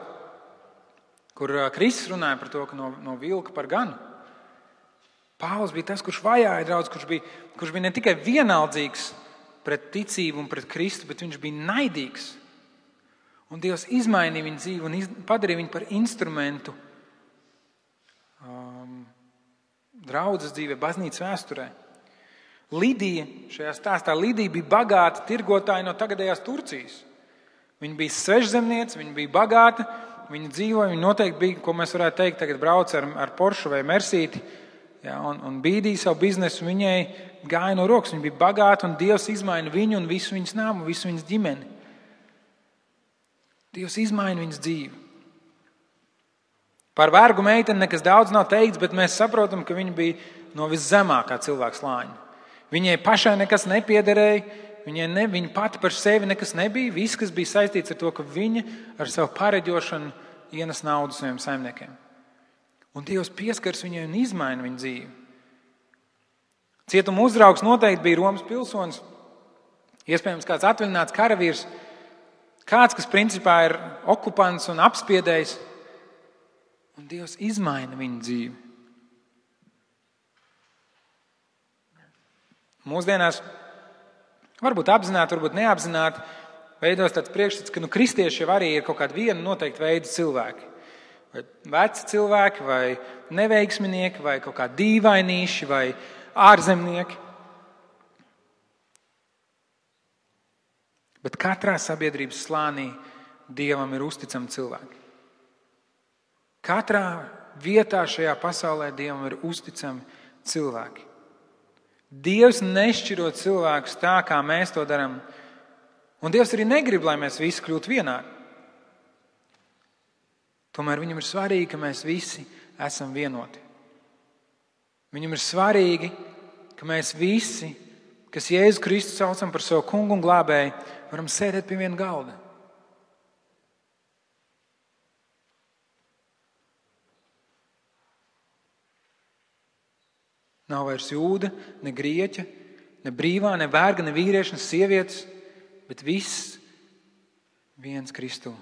kur Kristus runāja par to, ka no vilka par ganu. Pāvils bija tas, kurš vajāja draudzi, kurš bija ne tikai vienaldzīgs pret ticību un pret Kristu, bet viņš bija naidīgs. Un Dievs izmainīja viņu dzīvi un padarīja viņu par instrumentu draudzes dzīvē, baznīcas vēsturē. Lidija, šajā stāstā Lidija bija bagāta tirgotāja no tagadējās Turcijas. Viņa bija svežzemniece, viņa bija bagāta, viņa dzīvoja, viņa noteikti bija, ko mēs varētu teikt, tagad brauc ar Porsche vai Mercedes, ja, un bīdīja savu biznesu, viņai gāja no rokas, viņa bija bagāta un Dievs izmaina viņu un visu viņas nāmu, visu viņas ģimeni. Dievs izmaina viņas dzīvi. Par vergu meiteni nekas daudz nav teikts, bet mēs saprotam, ka viņa bija no viszemākā cilvēka slāņa. Viņai pašai nekas nepiederēja, viņa pati par sevi nekas nebija. Viss, kas bija saistīts ar to, ka viņa ar savu pareģošanu ienes naudu saviem saimniekiem. Un Dievs pieskars viņai un izmaina viņu dzīvi. Cietuma uzraugs noteikti bija Romas pilsonis, iespējams kāds atvaļināts karavīrs, kāds, kas principā ir okupants un apspiedējs. Un Dievs izmaina viņu dzīvi. Mūsdienās, varbūt apzināti, varbūt neapzināti, veidos tāds priekšstats, ka kristieši jau arī ir kaut kādi viena noteikti veidi cilvēki. Vai veci cilvēki, vai neveiksminieki, vai kaut kādi dīvainīši, vai ārzemnieki. Bet katrā sabiedrības slānī Dievam ir uzticami cilvēki. Katrā vietā šajā pasaulē Dievam ir uzticami cilvēki. Dievs nešķiro cilvēkus tā, kā mēs to darām. Un Dievs arī negrib, lai mēs visi kļūtu vienādi. Tomēr viņam ir svarīgi, ka mēs visi esam vienoti. Viņam ir svarīgi, ka mēs visi, kas Jēzu Kristu saucam par savu kungu un glābēju, varam sēdēt pie viena galda. Nav vairs jūda, ne grieķa, ne brīvā, ne verga, ne vīrieša, ne sievietes, bet viss viens Kristū.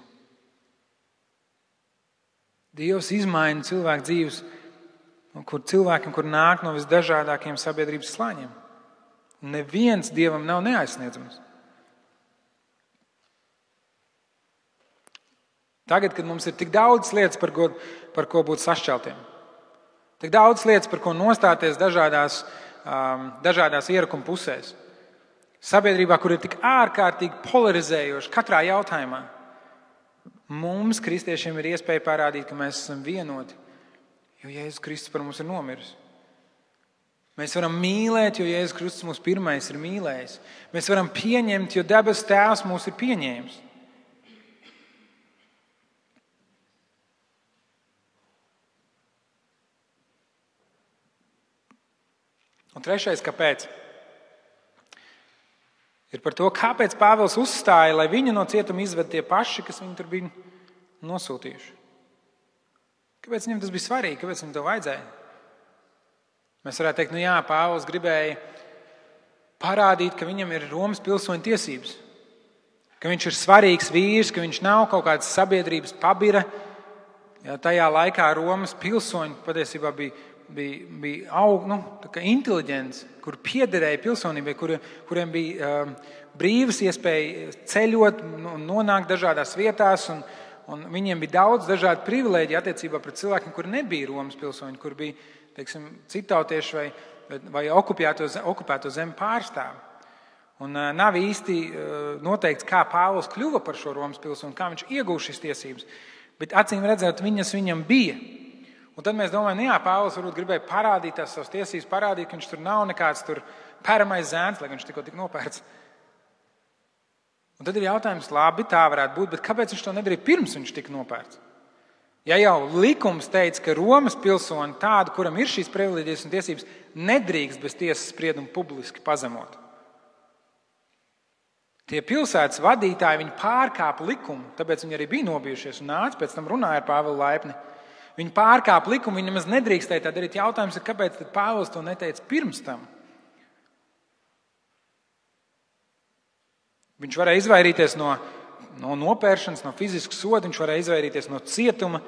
Dievs izmaina cilvēku dzīves, kur cilvēkiem, kur nāk no visdažādākiem sabiedrības slāņiem. Un neviens Dievam nav neaizsniedzams. Tagad, kad mums ir tik daudz lietas, par ko būt sašķeltiem, tik daudz lietas, par ko nostāties dažādās ierakuma pusēs. Sabiedrībā, kur ir tik ārkārtīgi polarizējoši katrā jautājumā, mums, kristiešiem, ir iespēja parādīt, ka mēs esam vienoti, jo Jēzus Kristus par mums ir nomiris. Mēs varam mīlēt, jo Jēzus Kristus mūs pirmais ir mīlējis. Mēs varam pieņemt, jo debesu Tēvs mūs ir pieņēmis. Un trešais, kāpēc? Ir par to, kāpēc Pāvils uzstāja, lai viņu no cietuma izved tie paši, kas viņu tur bija nosūtījuši. Kāpēc viņam tas bija svarīgi? Kāpēc viņam to vajadzēja? Mēs varētu teikt, Pāvils gribēja parādīt, ka viņam ir Romas pilsoņa tiesības, ka viņš ir svarīgs vīrs, ka viņš nav kaut kāds sabiedrības pabira. Ja, tajā laikā Romas pilsoņi patiesībā bija inteliģents, kur piederēja pilsonībai, kuriem bija brīvas iespēja ceļot, nonākt dažādās vietās, un viņiem bija daudz dažādu privilēģiju attiecībā pret cilvēkiem, kuri nebija Romas pilsoņi, kur bija, teiksim, citautieši vai okupēto zemi pārstāvi. Un nav īsti noteikts, kā Pāvils kļuva par šo Romas pilsoni, kā viņš iegūst šīs tiesības, bet acīm redzot, viņas viņam bija. Un tad mēs domājam, Pāvils varbūt gribēja parādīt tās savas tiesības, parādīt, ka viņš tur nav nekāds tur pēramais zēns, lai viņš tikko tik nopērts. Un tad ir jautājums, labi, tā varētu būt, bet kāpēc viņš to nedarīja pirms viņš tika nopērts? Ja jau likums teica, ka Romas pilsoni tādu, kuram ir šīs privileģijas un tiesības, nedrīkst bez tiesas sprieduma publiski pazemot. Tie pilsētas vadītāji, viņi pārkāpa likumu, tāpēc viņi arī bija nobijušies un nāca, pēc tam runāja ar Pāvilu laipni. Viņi pārkāpa likumu, viņi nemaz nedrīkstēja tā darīt. Jautājums ir, kāpēc tad Pāvils to neteica pirms tam? Viņš varēja izvairīties no nopēršanas, no fiziskas soda, viņš varēja izvairīties no cietuma.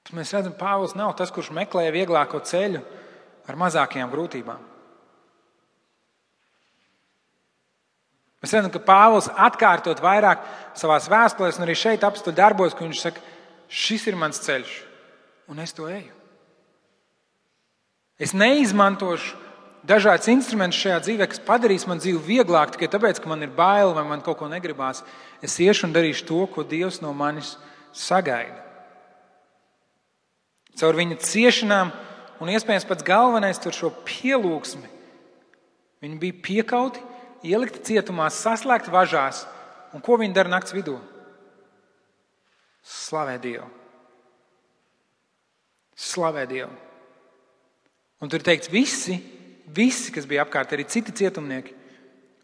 Tad mēs redzam, Pāvils nav tas, kurš meklēja vieglāko ceļu ar mazākajām grūtībām. Mēs redzam, ka Pāvils atkārtot vairāk savās vēstulēs, un arī šeit apstuļu darbos, ka viņš saka, šis ir mans ceļš, un es to eju. Es neizmantošu dažādas instrumentus šajā dzīvē, kas padarīs man dzīvi vieglāk tikai tāpēc, ka man ir bail vai man kaut ko negribās. Es iešu un darīšu to, ko Dievs no manis sagaida. Caur viņa ciešanām un iespējams pats galvenais tur šo pielūgsmi. Viņi bija piekauti, ielikti cietumā, saslēgti važās. Un ko viņi dara nakts vidū? Slavē Dievu. Slavē Dievu. Un tur teikts, visi, kas bija apkārt, arī citi cietumnieki,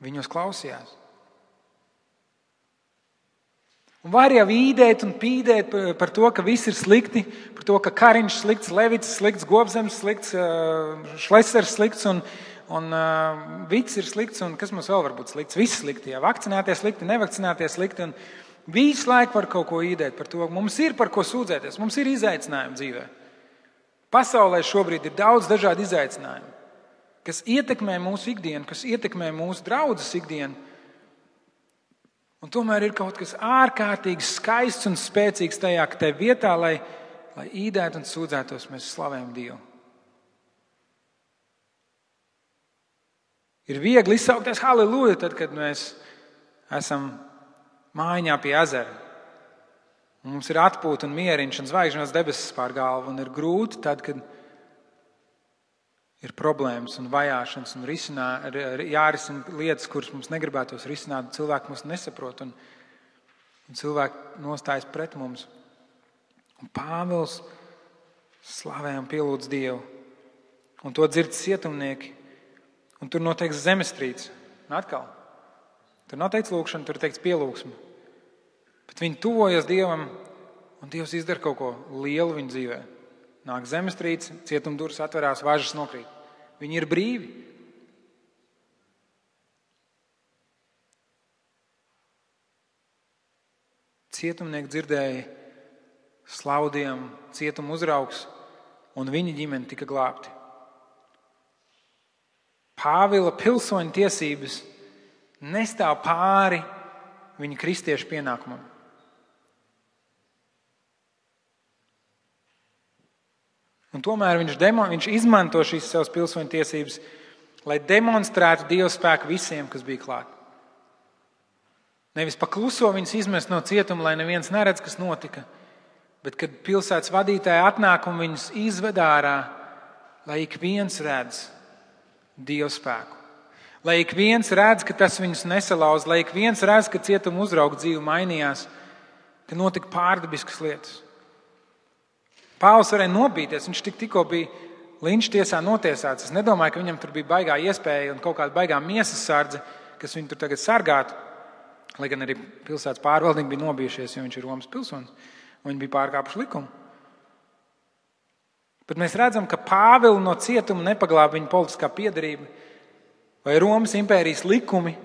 viņos klausījās. Un var jau īdēt un pīdēt par to, ka viss ir slikti, par to, ka Kariņš slikts, Levits slikts, Gobzems slikts, Šlesers slikts un Vits ir slikts, un kas mums vēl var būt slikts? Viss slikti, jā, vakcinēties slikti, nevakcinēties slikti, un visu laiku var kaut ko īdēt par to. Mums ir par ko sūdzēties, mums ir izaicinājumi dzīvē. Pasaulē šobrīd ir daudz dažādu izaicinājumu, kas ietekmē mūsu ikdienu, kas ietekmē mūsu draudzes ikdienu. Un tomēr ir kaut kas ārkārtīgi skaists un spēcīgs tajā, ka tajā vietā, lai īdētu un sūdzētos, mēs slavējam Dievu. Ir viegli izsaukties halleluja, tad, kad mēs esam mājiņā pie ezera. Mums ir atpūta un mieriņš un zvaigžņos debesis pār galvu, un ir grūti tad, kad ir problēmas un vajāšanas un jārisina lietas, kuras mums negribētos risināt, cilvēki mums nesaprot un cilvēki nostājas pret mums. Un Pāvils slavē un pielūdz Dievu, un to dzird cietumnieki. Un tur noteikts zemestrīce. Un atkal, tur noteikts lūkšana, tur teikts pielūgsme. Bet viņi tuvojas Dievam, un Dievs izdara kaut ko lielu viņu dzīvē. Nāk zemestrīce, cietumdurvis atverās, važas nokrīt. Viņi ir brīvi. Cietumnieki dzirdēja slaudiem cietuma uzraugs, un viņa ģimene tika glābti. Pāvila pilsoņa tiesības nestāv pāri viņa kristiešu pienākumam. Un tomēr viņš izmanto šīs savas pilsoņa tiesības, lai demonstrētu Dieva spēku visiem, kas bija klāt. Nevis pakluso viņus izmest no cietuma, lai neviens neredz, kas notika, bet kad pilsētas vadītāji atnāk un viņus izved ārā, lai ik viens redz Dieva spēku. Lai ik viens redz, ka tas viņus nesalauz, lai ik viens redz, ka cietuma uzrauga dzīve mainījās, ka notika pārdabiskas lietas. Pāvils varēja nobīties, viņš tikko bija linča tiesā notiesāts. Es nedomāju, ka viņam tur bija baigā iespēja un kaut kāda baigā miesas sardze, kas viņu tur tagad sargātu. Lai gan arī pilsētas pārvaldnieki bija nobijušies, jo viņš ir Romas pilsonis. Viņi bija pārkāpuši likumu. Bet mēs redzam, ka Pāvilu no cietuma nepaglāba viņa politiskā piederība vai Romas impērijas likumi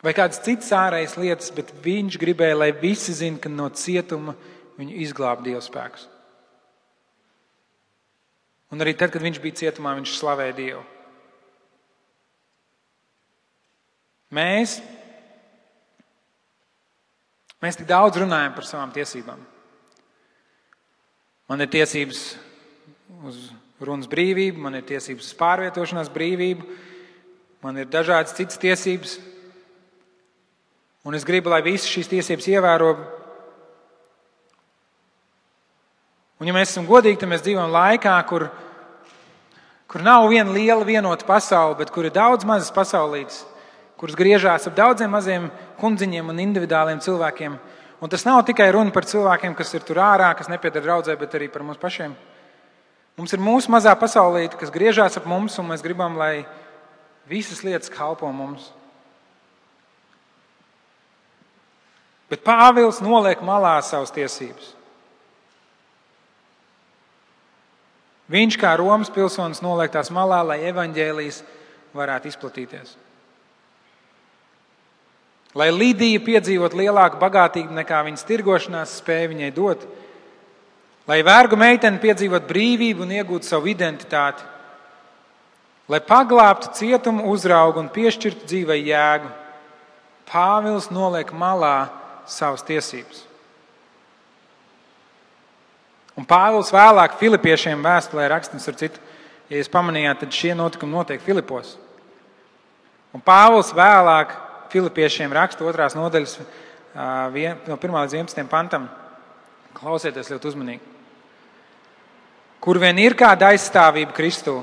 vai kādas citas ārējas lietas, bet viņš gribēja, lai visi zina, ka no cietuma viņu izglāba Dieva spēks. Un arī tad, kad viņš bija cietumā, viņš slavēja Dievu. Mēs tik daudz runājam par savām tiesībām. Man ir tiesības uz runas brīvību, man ir tiesības uz pārvietošanās brīvību, man ir dažādas citas tiesības. Un es gribu, lai visas šīs tiesības ievēro. Un ja mēs esam godīgi, tad mēs dzīvojam laikā, kur nav viena liela vienota pasaule, bet kur ir daudz mazas pasaulītes, kuras griežās ap daudziem maziem kundziņiem un individuāliem cilvēkiem. Un tas nav tikai runa par cilvēkiem, kas ir tur ārā, kas nepieder draudzē, bet arī par mums pašiem. Mums ir mūsu mazā pasaulīte, kas griežās ap mums, un mēs gribam, lai visas lietas kalpo mums. Bet Pāvils noliek malā savas tiesības. Viņš kā Romas pilsonis noliek tās malā, lai evaņģēlijs varētu izplatīties. Lai Lidija piedzīvot lielāku bagātību nekā viņas tirgošanās spēja viņai dot. Lai vergu meitene piedzīvot brīvību un iegūtu savu identitāti. Lai paglābtu cietumu uzraugu un piešķirtu dzīvei jēgu. Pāvils noliek malā savas tiesības. Un Pāvils vēlāk Filipiešiem vēstulē raksta, ar citu, ja jūs pamanījāt, tad šie notikumi notiek Filipos. Un Pāvils vēlāk Filipiešiem raksta 2. nodaļas no 1. līdz 11. pantam. Klausieties ļoti uzmanīgi. Kur vien ir kāda aizstāvība Kristū,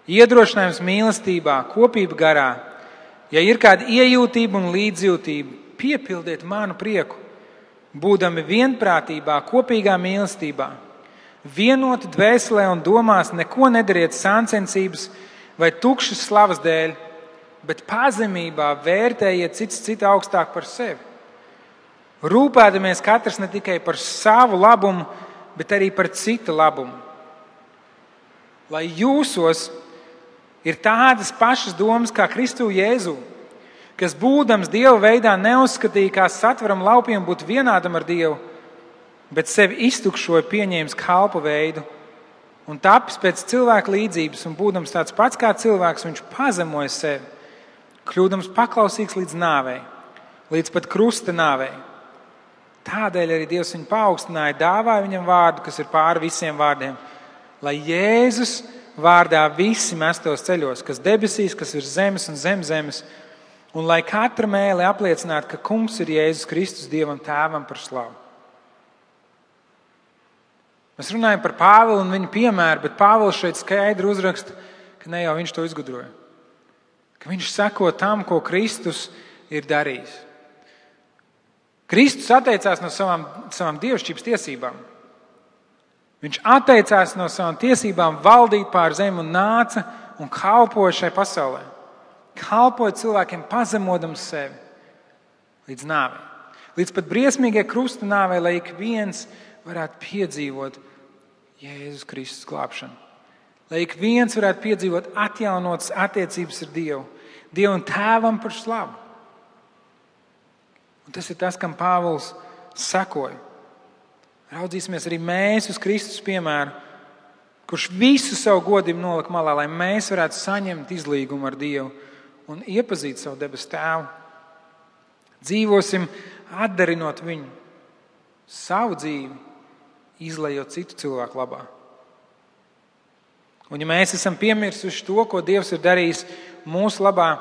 iedrošinājums mīlestībā, kopība garā, ja ir kāda iejūtība un līdzjūtība, piepildiet manu prieku, būdami vienprātībā, kopīgā mīlestībā, vienoti dvēselē un domās, neko nedariet sāncensības vai tukšas slavas dēļ, bet pazemībā vērtējiet cits citu augstāk par sevi. Rūpēdamies katrs ne tikai par savu labumu, bet arī par citu labumu. Lai jūsos ir tādas pašas domas kā Kristu Jēzu, kas būdams Dieva veidā neuzskatīja kā satveram laupiem būt vienādam ar Dievu, bet sevi iztukšoja pieņēmis kalpu veidu un tapis pēc cilvēka līdzības un būdams tāds pats kā cilvēks, viņš pazemoja sevi, kļūdams paklausīgs līdz nāvei, līdz pat krusta nāvei. Tādēļ arī Dievs viņu paaugstināja, dāvāja viņam vārdu, kas ir pāri visiem vārdiem, lai Jēzus vārdā visi mestos ceļos, kas debesīs, kas ir zemes un zem zemes, un lai katra mēle apliecinātu, ka kungs ir Jēzus Kristus Dievam tēvam par slavu. Mēs runājam par Pāvilu un viņa piemēru, bet Pāvils šeit skaidri uzraksta, ka ne jau viņš to izgudroja. Ka viņš seko tam, ko Kristus ir darījis. Kristus atteicās no savām dievišķības tiesībām. Viņš atteicās no savām tiesībām valdīt pār zemi un nāca un kalpoja šai pasaulē. Kalpoja cilvēkiem pazemodams sevi līdz nāvei. Līdz pat briesmīgai krusta nāvei, lai ik viens varētu piedzīvot Jēzus Kristus glābšanu. Lai ik viens varētu piedzīvot atjaunotas attiecības ar Dievu. Dievu un tēvam par slavu. Un tas ir tas, kam Pāvils sekoja. Raudzīsimies arī mēs uz Kristus piemēru, kurš visu savu godību nolika malā, lai mēs varētu saņemt izlīgumu ar Dievu un iepazīt savu debesu tēvu. Dzīvosim atdarinot viņu, savu dzīvi, izlejot citu cilvēku labā. Un ja mēs esam piemirsuši to, ko Dievs ir darījis mūsu labā,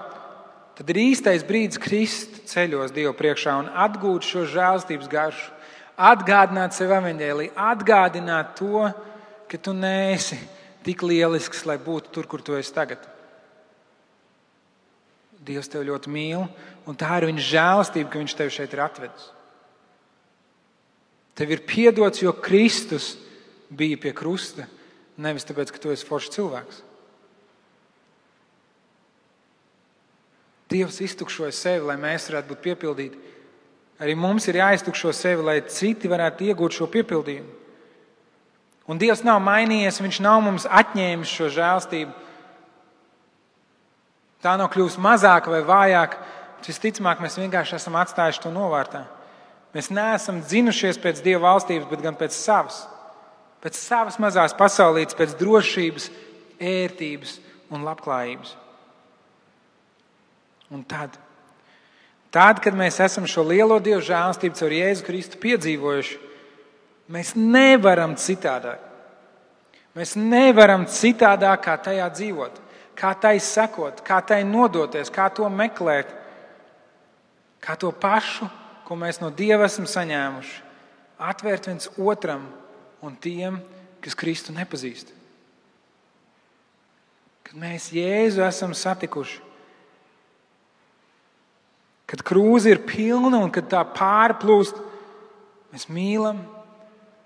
tad ir īstais brīdis krist ceļos Dievu priekšā un atgūt šo žēlstības garšu, atgādināt sev evaņģēliju, atgādināt to, ka tu neesi tik lielisks, lai būtu tur, kur tu esi tagad. Dievs tevi ļoti mīl, un tā ir viņa žēlastība, ka viņš tevi šeit ir atvedis. Tev ir piedots, jo Kristus bija pie krusta. nevis tāpēc, ka tu esi foršs cilvēks. Dievs iztukšoja sevi, lai mēs varētu būt piepildīti. Arī mums ir jāiztukšo sevi, lai citi varētu iegūt šo piepildījumu. Un Dievs nav mainījies, viņš nav mums atņēmis šo žēlstību. Tā nav kļūst mazāka vai vājāka, visticamāk mēs vienkārši esam atstājuši to novārtā. Mēs neesam dzinušies pēc Dieva valstības, bet gan pēc savas. Pēc savas mazās pasaulītes, pēc drošības, ērtības un labklājības. Un tad, kad mēs esam šo lielo Dieva žēlstību caur Jēzu Kristu piedzīvojuši, mēs nevaram citādāk. Mēs nevaram citādāk, kā tajā dzīvot, kā tai sekot, kā tai nodoties, kā to meklēt, kā to pašu, ko mēs no Dieva esam saņēmuši, atvērt viens otram un tiem, kas Kristu nepazīst. Kad mēs Jēzu esam satikuši, kad krūze ir pilna un kad tā pārplūst, mēs mīlam,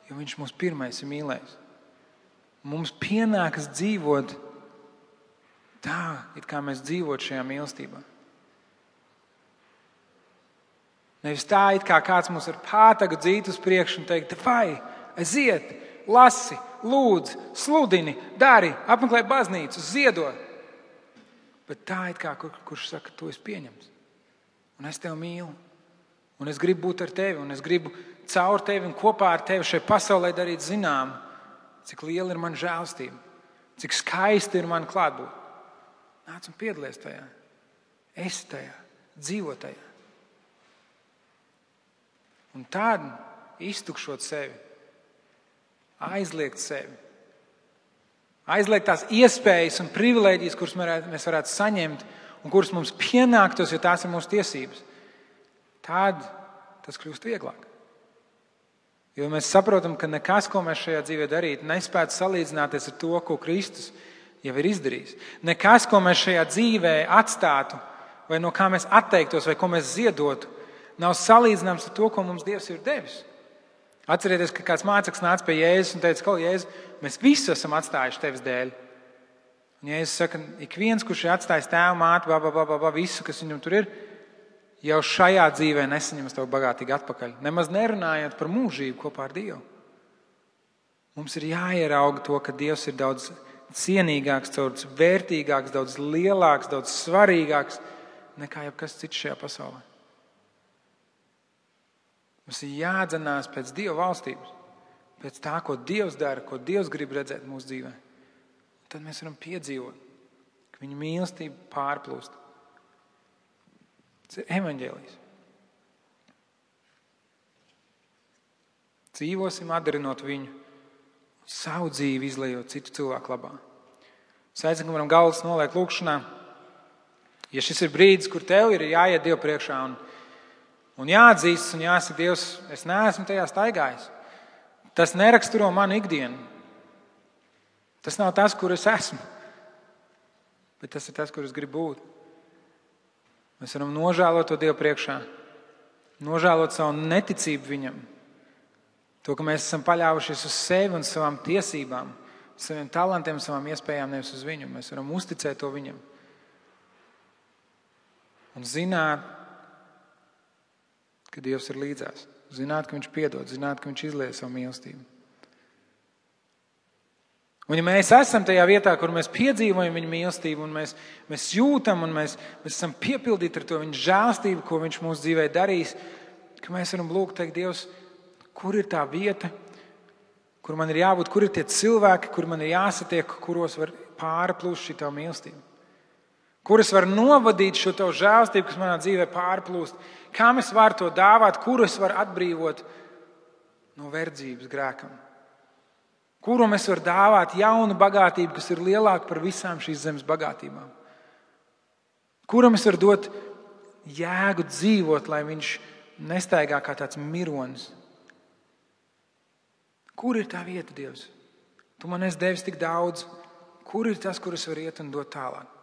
jo viņš mūs pirmais ir mīlējis. Mums pienākas dzīvot tā, it kā mēs dzīvot šajā mīlestībā. Nevis tā, it kā kāds mums ar pātagu dzīt uz priekšu un teikt, vai, aiziet, lasi, lūdz, sludini, dari, apmeklē baznīcu, ziedo. Bet tā, it kā kurš saka, tu esi pieņemts. Un es tevi mīlu. Un es gribu būt ar tevi. Un es gribu caur tevi un kopā ar tevi šai pasaulē darīt zinām, cik liela ir mana žēlstība, cik skaisti ir mana klātbūt. Nāc un piedalies tajā. Esi tajā. Dzīvo tajā. Un tad iztukšot sevi, aizliegt sevi, aizliegt tās iespējas un privilēģijas, kuras mēs varētu saņemt un kuras mums pienāktos, jo tās ir mūsu tiesības. Tad tas kļūst vieglāk. Jo mēs saprotam, ka nekas, ko mēs šajā dzīvē darītu, nespētu salīdzināties ar to, ko Kristus jau ir izdarījis. Nekas, ko mēs šajā dzīvē atstātu, vai no kā mēs atteiktos, vai ko mēs ziedotu, nav salīdzināms ar to, ko mums Dievs ir devis. Atcerieties, ka kāds māceklis nāca pie Jēzus un teica, Jēzu, mēs visi esam atstājuši tevis dēļ. Un Jēzus saka, ik viens, kurš ir atstājis tēvu, māti, visu, kas viņam tur ir, jau šajā dzīvē nesaņems tev bagātīgi atpakaļ. Nemaz nerunājot par mūžību kopā ar Dievu. Mums ir jāierauga to, ka Dievs ir daudz cienīgāks, daudz vērtīgāks, daudz lielāks, daudz svarīgāks nekā jebkas cits šajā pasaulē. Mums ir jādzenās pēc Dieva valstības, pēc tā, ko Dievs dara, ko Dievs grib redzēt mūsu dzīvē. Tad mēs varam piedzīvot, ka viņa mīlestība pārplūst. Tas ir evaņģēlijs. Dzīvosim atdarinot viņu, savu dzīvi izlejot citu cilvēku labā. Es aicinu, ka varam galvas noliekt lūkšanā. Ja šis ir brīdis, kur tev ir jāiet Dievu priekšā un jāatzīstas un jāsaka, Dievs, es neesmu tajā staigājis. Tas neraksturo manu ikdienu. Tas nav tas, kur es esmu, bet tas ir tas, kur es gribu būt. Mēs varam nožēlot to Dievu priekšā, nožēlot savu neticību viņam, to, ka mēs esam paļāvušies uz sevi un savām tiesībām, saviem talantiem, savām iespējām, nevis uz viņu. Mēs varam uzticēt to viņam un zināt, ka Dievs ir līdzās, zināt, ka viņš piedod, zināt, ka viņš izlieja savu mīlestību. Un ja mēs esam tajā vietā, kur mēs piedzīvojam viņa mīlestību un mēs jūtam un mēs esam piepildīti ar to viņa žēlstību, ko viņš mūsu dzīvē darīs, ka mēs varam lūgt, teikt, Dievs, kur ir tā vieta, kur man ir jābūt, kur ir tie cilvēki, kur man ir jāsatiek, kuros var pārplūst šī tavu mīlestību. Kur es varu novadīt šo tavu žēlstību, kas manā dzīvē pārplūst, kā es varu to dāvāt, kur es varu atbrīvot no verdzības grēkam. Kuram es varu dāvāt jaunu bagātību, kas ir lielāka par visām šīs zemes bagātībām. Kuram es varu dot jēgu dzīvot, lai viņš nestaigā kā tāds mironis. Kur ir tā vieta, Dievs? Tu man esi devis tik daudz. Kur ir tas, kur es varu iet un dot tālāk?